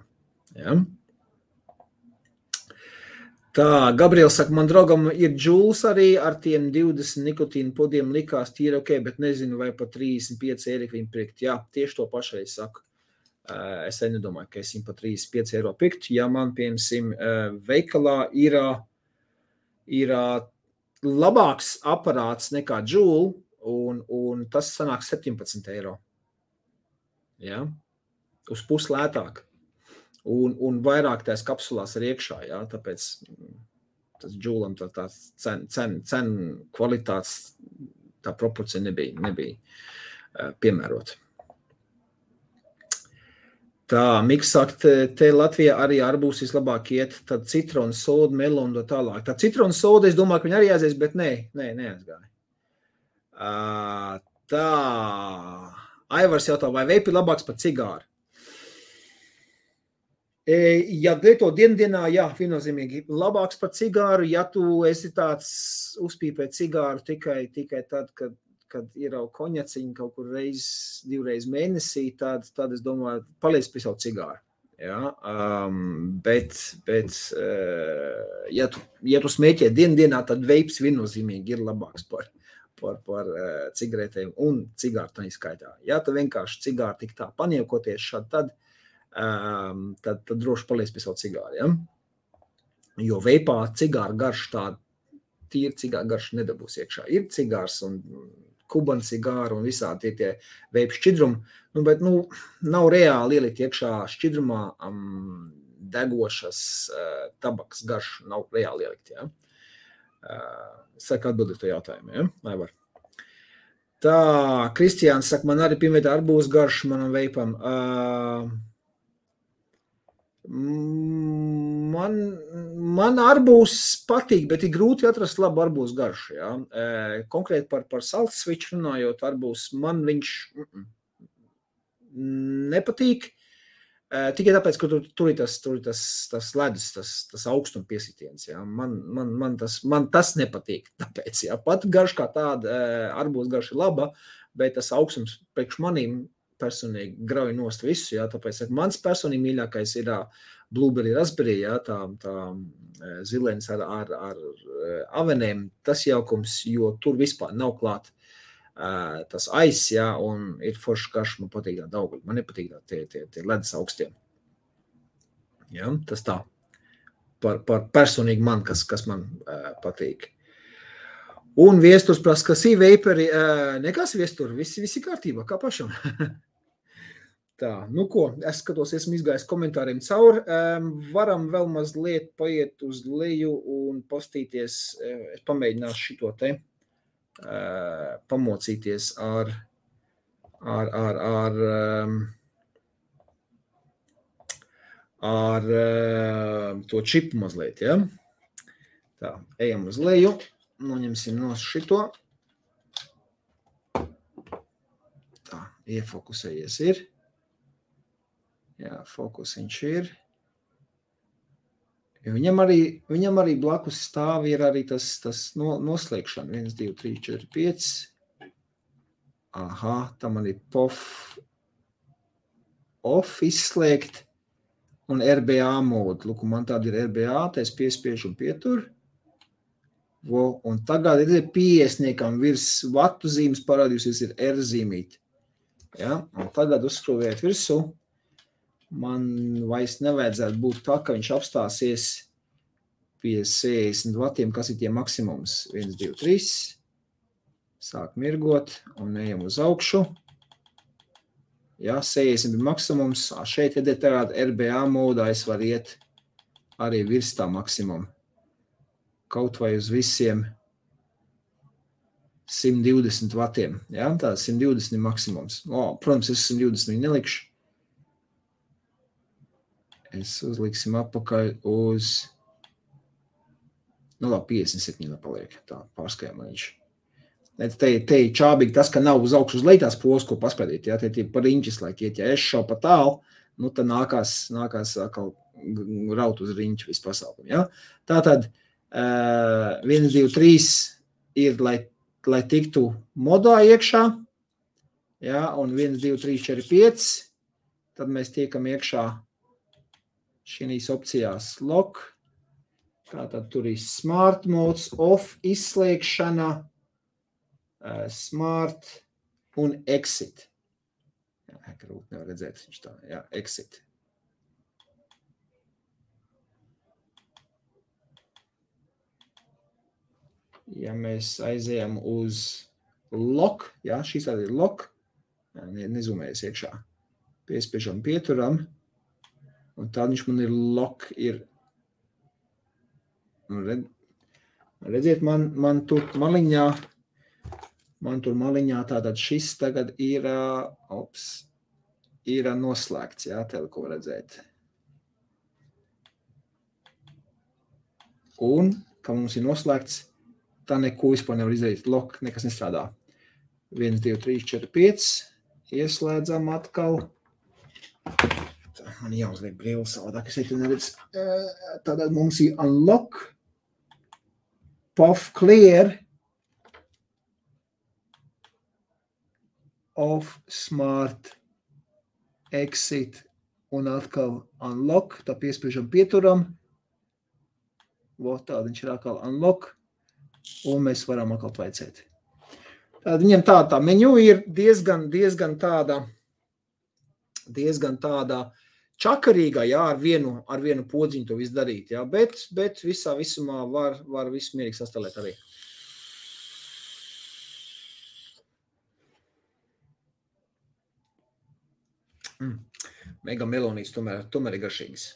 Ja? Tā, Gabriels saka, man draugam ir džūls arī ar tiem 20 nikotīnu podiem likās tīri ok, bet nezinu, vai pa 35 eiro viņi pirkt. Jā, tieši to pašai saku. Es nedomāju, ka es viņu pa 35 eiro pirkt. Ja man, piemēram, veikalā ir labāks aparāts nekā džūl, un tas sanāk 17 eiro. Ja? Uz pus lētāk. Un vairāk tās kapsulās ir iekšā, jā, tāpēc tas džūlam tā cen kvalitātes, tā proporcija nebija piemērota. Tā, Miks saka, te Latvijā arī arbūs vislabāk iet, tad citronu soda, melonu tālāk. Tā citronu soda, es domāju, ka viņi arī aizies, bet neaizgāja. Tā, Aivars jautā, vai veipi labāks par cigāru? Ja lieto dienā, jā, viennozīmīgi labāks par cigāru, ja tu esi tāds uzpīpē cigāru tikai tad, kad ir jau koņaciņi kaut kur divreiz mēnesī, tad es domāju, paliec pie savu cigāru. Ja? Bet ja tu smēķē dienā, tad veips viennozīmīgi ir labāks par cigaretēm un cigāru tā izskaitā. Ja tu vienkārši cigāru tik tā paniekoties šādi, tad droši paliec pie savu cigāru. Ja? Jo veipā cigāra garša tāda, tīri cigāra garša nedabūs iekšā. Ir cigārs un kubana cigāra un visādi tie veipu šķidrumi, bet nav reāli ielikt iekšā šķidrumā degošas tabaks garšu, nav reāli ielikt. Ja? Saka atbildēt to jautājumu, ja? Vai var? Tā, Kristiāns saka, man arī piemētā arbūs garšu manam veipam. Man arbūs patīk, bet ir grūti atrast labu arbūs garšu. Ja? Konkrēti par salt switch runājot, arbūs man viņš nepatīk. Tikai tāpēc, ka tur ir tas ledus, tas augstuma piesitiens. Ja? Man tas nepatīk. Tāpēc, ja? Pat garš kā tāda arbūs garša ir laba, bet tas augstums priekš manīm personīgi grauj nost visu, jā, tāpēc mans personīgi mīļākais ir blueberry raspberry, jā, tā zilens ar avenēm, tas jaukums, jo tur vispār nav klāt tas aiz, jā, un ir forši karš, man patīk tā daudz, man nepatīk tie ledus augstiem. Jā, tas tā, par personīgi man, kas man patīk. Un viesturs prasa, kas ir veiperi, nekas viesturi, visi kārtībā, kā pašam. Tā, nu ko, es skatos, esmu izgājis komentāriem cauri, varam vēl mazliet paiet uz leju un postīties, es pamēģināšu šito te, pamocīties ar to čipu mazliet, ja? Tā, ejam uz leju. Noņemsim no šito. Tā, iefokusējies ir. Jā, fokusiņš ir. Viņam arī blakus stāv ir arī tas noslēgšana. 1, 2, 3, 4, 5. Aha, tam arī off izslēgt un RBA modu. Lūk, man tāda ir RBA, tā es piespiežu un pieturu. Un tagad ir 50 virs vatu zīmes parādījusies ir R zīmīti. Ja? Un tagad uzskrūvēt virsū. Man vairs nevajadzētu būt tā, ka viņš apstāsies pie 60 vatiem, kas ir tie maksimums. 1, 2, 3. Sāk mirgot un ejam uz augšu. Ja, 60 ir maksimums. Šeit tagad RBA modā es varu iet arī virs tā maksimuma. Kaut vai uz visiem 120 vatiem. Ja? Tā 120 ir maksimums. Protams, es 120 viņu nelikšu. Es uzliksim apakaļ uz Nu, labi, 57 paliek. Tā, pārskajām viņš. Te čābīgi tas, ka nav uz augšu uz leitās pols, ko paspēdīt. Ja? Te par riņķis, lai iet, ja es šau pa tālu, nu, tad nākās atkal raut uz riņķu visu pasaukumu. Ja? Tātad 1, 2, 3 ir, lai tiktu modā iekšā, ja? Un 1, 2, 3, 4, 5, tad mēs tiekam iekšā šīs opcijās lock, tātad tur ir smart modes, off, izslēgšana, smart un exit. Jā, grūti nevar redzēt, viņš tā, jā, exit. Ja mēs aizējam uz lock, jā, šīs tāda ir lock, nezumējas iekšā, piespiežam pieturam, un tad viņš man ir lock, ir, redziet, man tur maliņā tātad šis tagad ir noslēgts, jā, tev ko redzēt. Un, ka mums ir noslēgts, tā neko vispār nevar izdarīt. Lock, nekas nestrādā. 1, 2, 3, 4, 5. Ieslēdzam atkal. Tā, man jāuzliek brīlis savādāk, es šeit neredz. Tātad mums ir unlock, puff clear, off, smart, exit un atkal unlock. Tā piespiežam pieturam. Tāda viņš ir atkal unlock. Un mēs varam atkal tvaicēt. Tātad viņam tā menu ir diezgan tāda čakarīga, jā, ar vienu podziņu to visu darīt, jā, bet visumā var visu mierīgi sastāvēt arī. Mega melonīts tomēr ir garšīgs.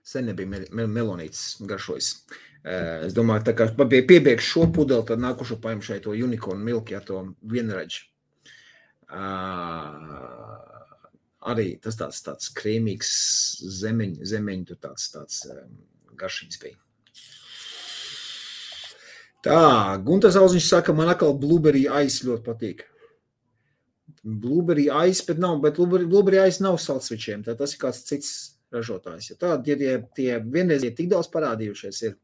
Sen nebija melonīts garšojas. Es domāju, tā kā piebiegšu šo pudeli, tad nākušo paņem šeit to unicorn milk, ja to vienraģi. Arī tas tāds krēmīgs zemeņu, tur tāds garšīgs bija. Tā, Guntas Auziņš saka, man atkal blueberry ice ļoti patīk. Blueberry ice, bet blueberry ice nav saldsvičiem, tad tas ir kāds cits ražotājs. Ja tādi tie vienreiz tik daudz parādījušies ir,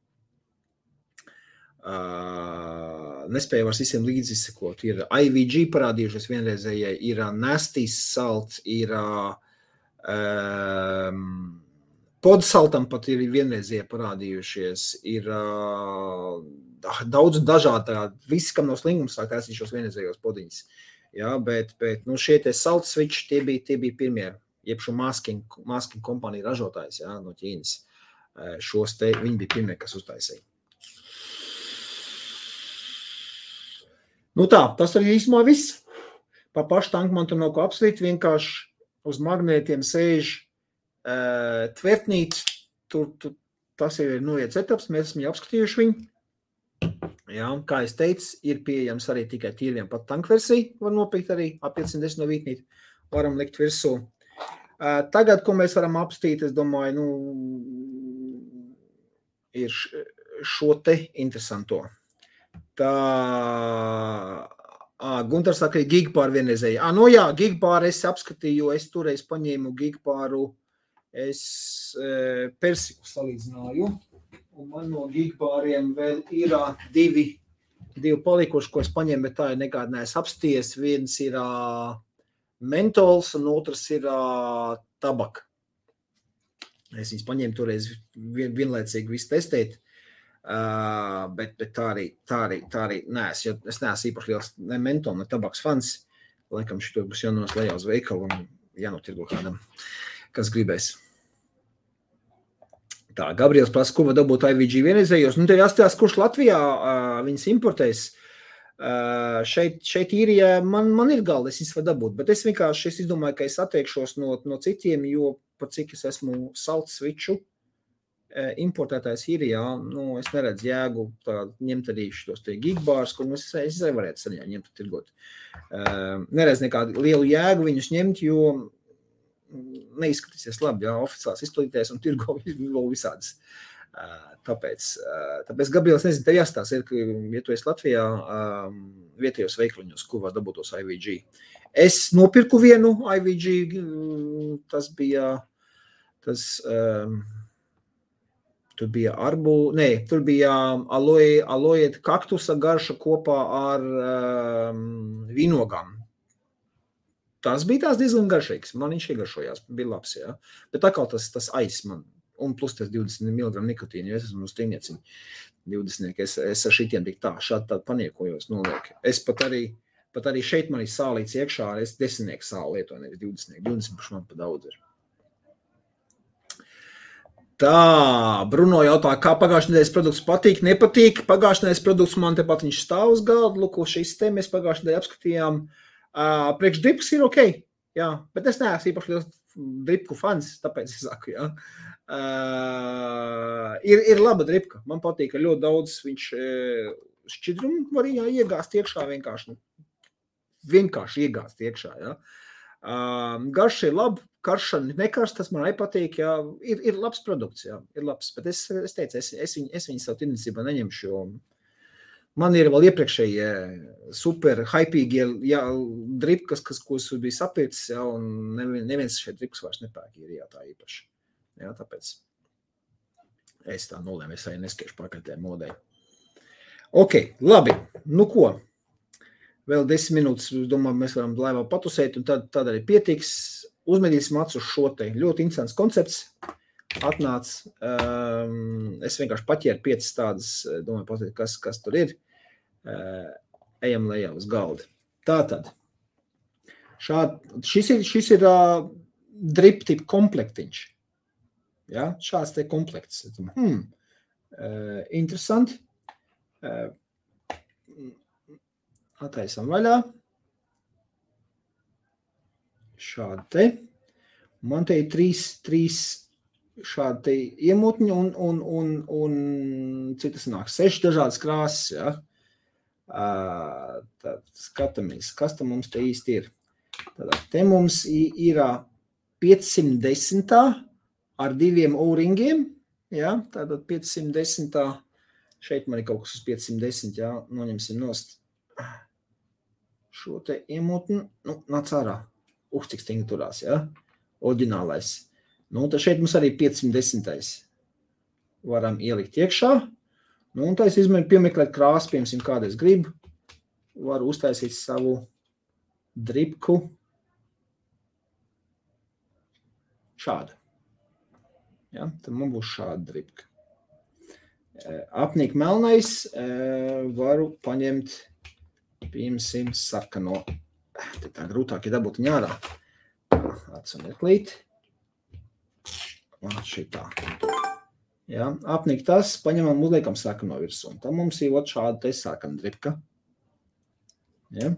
nespēju vairs visiem līdz izsekot. Ir IVG parādījušies vienreizējai, ir Nasty Salt, ir Podsaltam pat ir vienreizie parādījušies, ir daudz dažādi, visi, kam nav slingums, sāk taisīt šos vienreizējos podiņus. Ja, bet šie tie salt switch, tie bija pirmie, jeb šo masking kompāniju ražotājs, ja, no Ķīnas. Šos te, viņi bija pirmie, kas uztaisīja. Nu tā, tas arī īsumā viss. Pa pašu tanku man tur nav ko apslīt, vienkārši uz magnētiem sēž tvertnīt, tas jau ir noiet setups, mēs esam jau apskatījuši viņu. Jā, kā es teicu, ir pieejams arī tikai tīriem pat tankversiju, var nopirkt arī A510 no Vītnīt, varam likt virsū. Tagad, ko mēs varam apstīt, es domāju, ir šo te interesanto. Tā, Guntars saka, ir gigpāru vienreizēji. Jā, gigpāru es apskatīju, jo es toreiz paņēmu gigpāru, es persiku salīdzināju, un man no gigpāriem vēl ir divi palikuši, ko es paņēmu, bet tā ir nekāda neesmu apsties. Viens ir mentols, un otrs ir tabaka. Es viņus paņēmu toreiz vienlaicīgi visu testēt, bet tā arī neesmu, jo es neesmu īpaši liels ne mentol, ne tabaks fans. Laikam šito būs jānonas lejā uz veikalu un jānotirgo kādam, kas gribēs. Tā, Gabriels prasa, ko var dabūt IVG vienreizējos. Te jāstāsta, kurš Latvijā viņas importēs. Šeit īrijā man ir galda, es viņas var dabūt, bet es vienkārši izdomāju, ka es atteikšos no citiem, jo par cik es esmu salt switchu importētājs ir, jā, es neredzu jēgu ņemt arī šos te gigbārs, kur es arī varētu saņemt, ņemt un tirgot. Neredzu nekādu lielu jēgu viņus ņemt, jo neizskatīsies labi, jā, oficiāls izplatītājs un tirgo vēl visādas. Tāpēc Gabriels, nezinu, tev jāstāsta, ka, ja tu esi Latvijā, vietējos veikliņos, kur var dabūt tos IVG. Es nopirku vienu IVG, tur bija tur bija aloe kaktusa garša kopā ar vīnogām. Tas bija tās diezgan garšīgs. Man viņš iegaršojās, bija labs, jā. Bet atkal tas aiz man. Un plus tas 20 mg nikotīnu, jo es esmu uz tīnieciņu 20. Es ar šitiem tik šādi tādu paniekojos nolieku. Es pat arī šeit man ir sālīts iekšā, es 10 sāli lietoju, nevis 20. 20 paši man pa daudz ir. Tā, Bruno jautā, kā pagājušajā nedēļas produkts patīk, nepatīk. Pagājušajā nedēļas produkts man tepat viņš stāv uz galda, lūko šīs te mēs pagājušajā nedēļā apskatījām. Priekš drips ir ok, jā, bet es neesmu īpaši liels dripku fans, tāpēc es saku, jā. Ir laba dripka, man patīk, ka ļoti daudz viņš šķidrumu var iegāzt iekšā vienkārši iegāzt iekšā, jā. Garša ir laba, karša nekarš, tas man arī patīk, jā, ir labs produkts, jā, ir labs, bet es teicu, es viņu savu tirdzniecībā neņemšu, jo man ir vēl iepriekšējie super hypīgie dripkas, ko es biju sapircis, jā, un neviens šeit drips vairs nepērk, ir jā, tā īpaši. Jā, tāpēc es tā nolēmu, es arī neskiešu pakaļtē modei. Ok, labi, nu ko? Vēl 10 minūtes, domāju, mēs varam laivā patusēt, un tad arī pietiks. Uzmedīsim acu uz šo te ļoti interesants koncepts. Atnāc, es vienkārši paķēru 5 tādas, domāju, pastāstīt, kas tur ir. Ejam lejā uz galda. Tātad, šis ir drip tip komplektiņš. Ja, šāds te komplekts. Interesanti. Attaisam vaļā. Šādi te. Man te ir 3 šādi te iemutņi un citas nāk 6 dažādas krāsas, ja. Tad skatāmies, kas tam mums te īsti ir. Tad te mums ir 510. Ar 2 O-ringiem, jā, tātad 510, šeit man ir kaut kas uz 510, jā, noņemsim nost šo te iemutni, nāc ārā, cik stingri turās, jā, oriģinālais. Tad šeit mums arī 510. Varam ielikt iekšā, un tā es izmēru piemeklēt krāsu, piemēram, kādu es gribu, varu uztaisīt savu dripku šādu. Ja, tad man būs šāda dripka. Apnīk melnais varu paņemt, piemēram, sarkano. Te tā grūtāk ir dabūt viņu ārā. Atsunieklīt. Šitā. Ja, apnīk tas, paņemam uzliekam sarkano virsū. Tad mums ir šāda te sarkana dripka. Ja.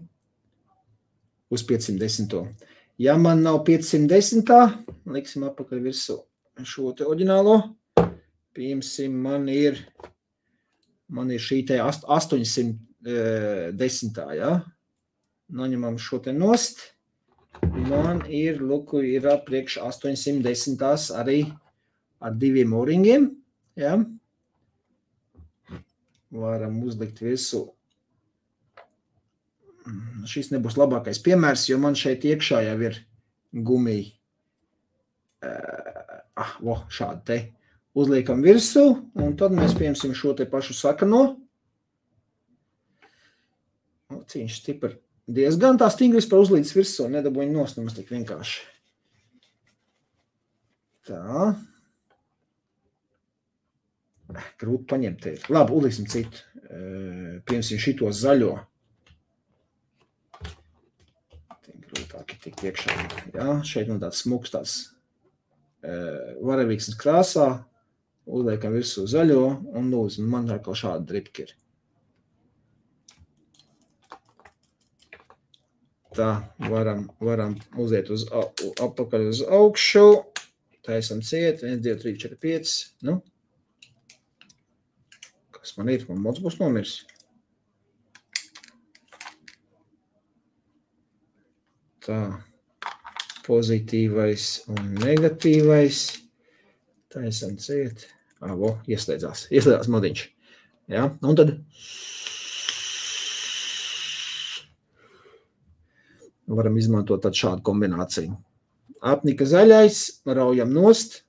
Uz 510. Ja man nav 510, liksim apakaļ virsū šo te oriģinālo, piemēram, man ir šī te 810, ja? Noņemam šo te nost, man ir, luku, ir priekš 810 arī ar 2 O-ringiem, ja? Varam uzlikt visu. Šis nebūs labākais piemērs, jo man šeit iekšā jau ir gumija. Šādi te uzliekam virsū, un tad mēs piemēram šo te pašu sakano. Cīņš stipri diezgan tā stingri vispār uzlīdz virsū, nedabūju nost, nemaz tik vienkārši. Tā. Grūti paņemt te. Labi, uzliksim citu. Piemēram, šito zaļo. Grūtāk ir tikt iekšā. Jā, šeit man tāds smuks tāds varavīksnes krāsā, uzliekam virsū zaļo, un lūdzu, man kā šāda dripka ir. Tā, varam uziet apakaļ uz augšu, taisam ciet, 1, 2, 3, 4, 5, kas man ir? Man mods būs nomirs. Tā, pozitīvais un negatīvais. Taisam ciet. Ieslēdzās modiņš. Ja? Un tad varam izmantot tad šādu kombināciju. Apnika zaļais, raujam nost.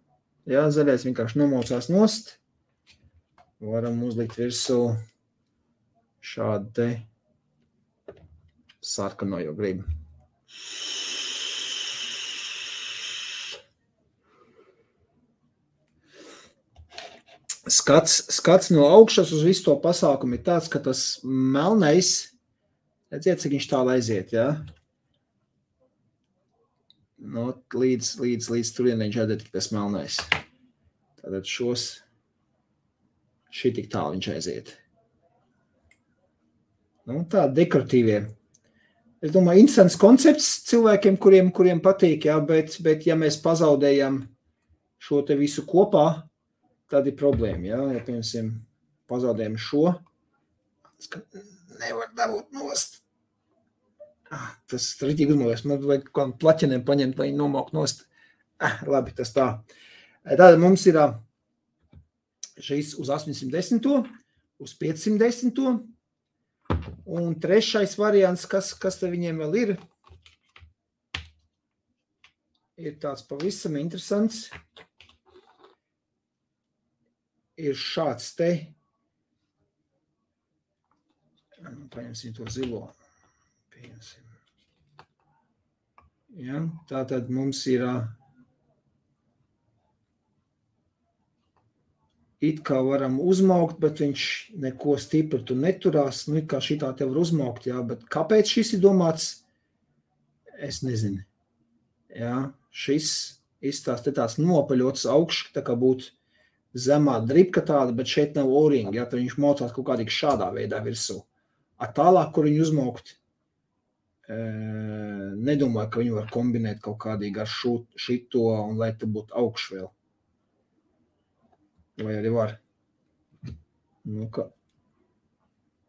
Ja? Zaļais vienkārši nomaucās nost. Varam uzlikt virsū šādu te sarkano, jo gribu. Skats no augšas uz visu to pasākumu ir tāds, ka tas melnais, redziet, cik viņš tālu aiziet, ja? No, līdz turienē viņš aiziet, tas melnais. Tātad šī tik tālu viņš aiziet. Nu, tā dekoratīvie. Es domāju, interesants koncepts cilvēkiem, kuriem patīk, ja? Bet ja mēs pazaudējam šo te visu kopā, tad ir problēma, ja? Ja, piemēram, pazaudējam šo, nevar dabūt nost. Tas rītīgi uzmālies, man vajag kādam plaķeniem paņemt, lai viņi nomaukt nost. Labi, tas tā. Tātad mums ir šis uz 810, uz 510, un trešais variants, kas te viņiem vēl ir tāds pavisam interesants. Ir šāds te, paņemsim to zilo, ja, tātad mums ir it kā varam uzmaukt, bet viņš neko stipri tu neturās, nu it kā šitā te var uzmaukt, jā, bet kāpēc šis ir domāts, es nezinu, jā, šis izstāst te tāds nopaļots augšs, tā kā būtu zemā dripka tāda, bet šeit nav o-ringa, ja, tad viņš maucās kaut kādīgi šādā veidā virsū. Tālāk, kur viņu uzmaukt, nedomāju, ka viņu var kombinēt kaut kādīgi ar šito, un lai te būtu augš vēl. Vai arī var? Nu, ka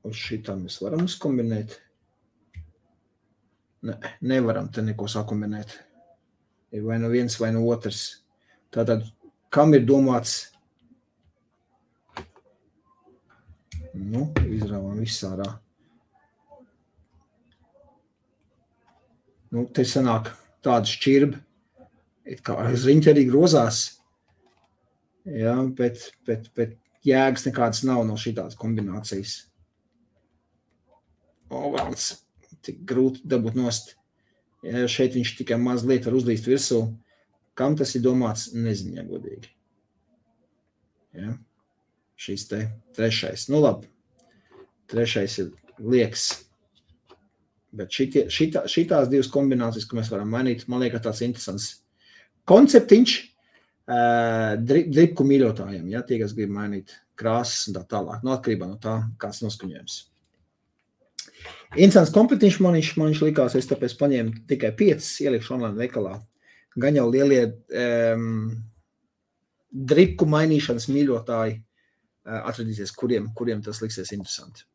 uz šitā mēs varam uzkombinēt. Nevaram te neko sakombinēt. Ir vai no viens, vai no otrs. Tātad, kam ir domāts? Nu, izrāvām visārā. Nu, te sanāk tāda šķirba, it kā riņķi arī grozās, ja, bet jēgas nekādas nav no šitās kombinācijas. Valds, tik grūti dabūt nost. Ja, šeit viņš tikai mazliet var uzlīst virsū. Kam tas ir domāts, nezinu, ja godīgi. Ja. Šis te trešais. Nu labi, trešais ir liekas. Bet šitās divas kombinācijas, ko mēs varam mainīt, man liekas tāds interesants konceptiņš dripku mīļotājiem, ja, tie, kas grib mainīt krāsas un tā tālāk, no atkarībā no tā, kāds noskaņojums. Interesants komplektiņš man viņš likās, es tāpēc paņēmu tikai 5, ielikšu online veikalā. Gan jau lielie dripku mainīšanas mīļotāji atradīsies, kuriem tas liksies interesanti.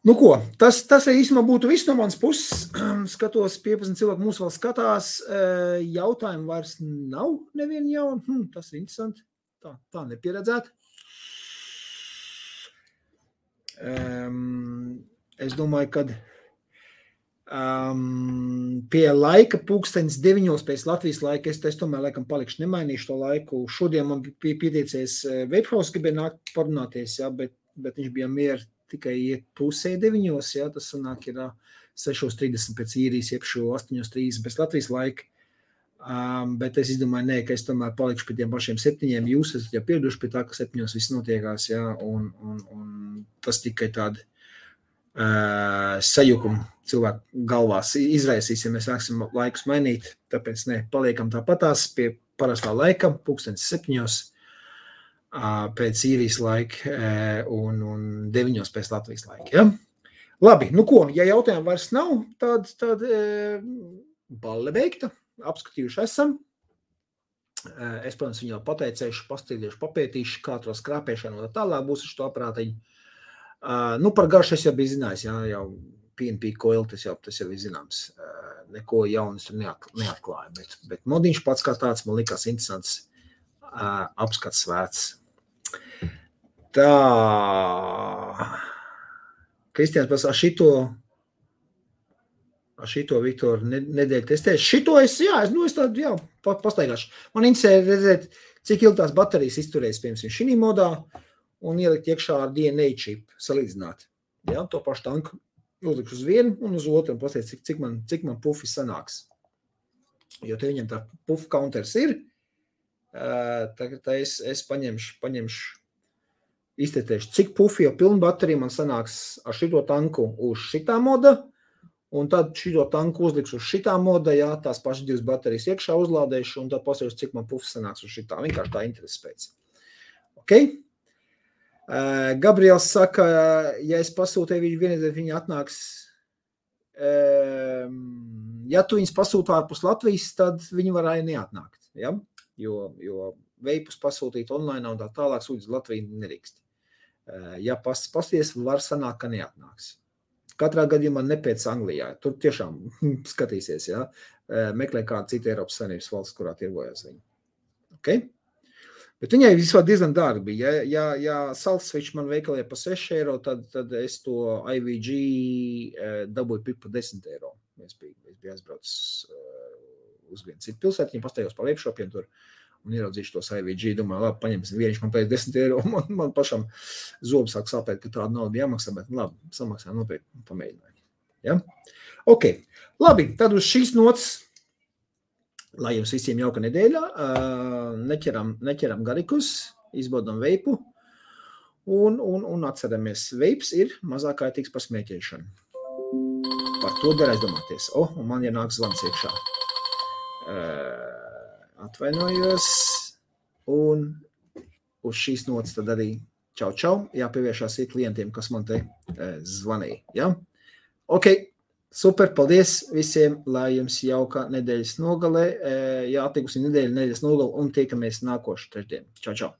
Nu ko, tas īstenībā būtu viss no manas puses. Skatos, 15 cilvēku mūs vēl skatās. Jautājumu vairs nav nevienu jaunu. Tas ir interesanti. Tā nepieredzēt. Es domāju, kad pie laika pulkstenis 9 pēc Latvijas laika, es tomēr laikam palikšu, nemainīšu to laiku. Šodien man bija pieteicies Webhouse, gribēja nākt parunāties, ja, bet viņš bija mieru tikai iet pusē 9, ja, tas sanāk ir 6:30 pēc īrijas, jeb 8:30 pēc Latvijas laika. Bet es izdomāju, ka es tomēr palikšu pie tiem pašiem 7, jūs esat jau pieraduši pie tā, ka 7 viss notiekās, ja, un tas tikai tādi sajukumi cilvēku galvās izraisīs, ja mēs sāksim laikus mainīt, tāpēc paliekam tāpatās pie parastā laika, pulkstenis 7 pēc īrijas laika un 9 pēc Latvijas laika. Ja? Labi, nu ko, ja jautājumu vairs nav, tad balle beigta, apskatījuši esam. Es, protams, viņu pateicēšu, pastīdiešu, papētīšu, kā to skrāpēšanu un tālāk būs uz to aprātiņu. Par garšu es jau biju zinājis, jau PNP coil, tas jau ir zināms. Neko jaunas tur neatklāja, bet modiņš pats kā tāds man likās interesants apskats vērts. Tā, Kristiāns pasā šito Viktor nedēļu testēšu. Šito es tādu, pastaigāšu. Man interesē redzēt, cik ilgi tās baterijas izturēs, piemēram, šī modā un ielikt iekšā ar DNA čip, salīdzināt. Ja, to pašu tanku uzlikšu uz vienu un uz otru un pasties, cik man pufi sanāks. Jo te viņam tā pufu counters ir, tā es paņemšu, iztetēšu, cik pufi jau pilnu bateriju man sanāks ar šito tanku uz šitā moda, un tad šito tanku uzlikšu uz šitā moda, tās pašas 2 baterijas iekšā uzlādēšu, un tad pasēšu, cik man pufi sanāks uz šitā. Vienkārši tā interesi pēc. Ok? Gabriels saka, ja es pasūtēju viņu vienreiz, viņi atnāks, ja tu viņus pasūtu ārpus Latvijas, tad viņi varēja neatnākt, ja? Jo veipus pasūtīt online un tā tālāk sūdz Latviju nedrīkst. Ja pasties, var sanākt, ka neatnāks. Katrā gadījumā nepēc Anglijā. Tur tiešām skatīsies, ja? Meklē kādu citu Eiropas Savienības valsts, kurā tirgojas viņi. Okay? Bet viņai vispār diezgan dārgi bija. Ja salt switch man veikalē pa 6 eiro, tad es to IVG dabūju pa 10 eiro. Es biju aizbraucis uz vienu citu pilsētu, viņi pastājos pa webshopiem tur un ieraudzīšu tos IVG. Domāju, labi, paņemsim vieniši, man pēc 10 eiro. Man pašam zobu sāk sāpēt, ka tāda nauda jāmaksā, bet labi, samaksā nopietni pamēģināju. Ja? Ok, labi, tad uz šīs nots, lai jums visiem jauka nedēļa, neķeram garikus, izbaudam veipu un atceramies, veips ir mazāk kaitīgs par smēķēšanu. Par to der aizdomāties. Un man nāk zvans iekšā. Atvainojos, un uz šīs notas tad arī čau, jāpieviešās klientiem, kas man te zvanīja. Ja? Ok, super, paldies visiem, lai jums jauka nedēļas nogale, atikusi nedēļas nogale un tiekamies nākošu trešdien. Čau.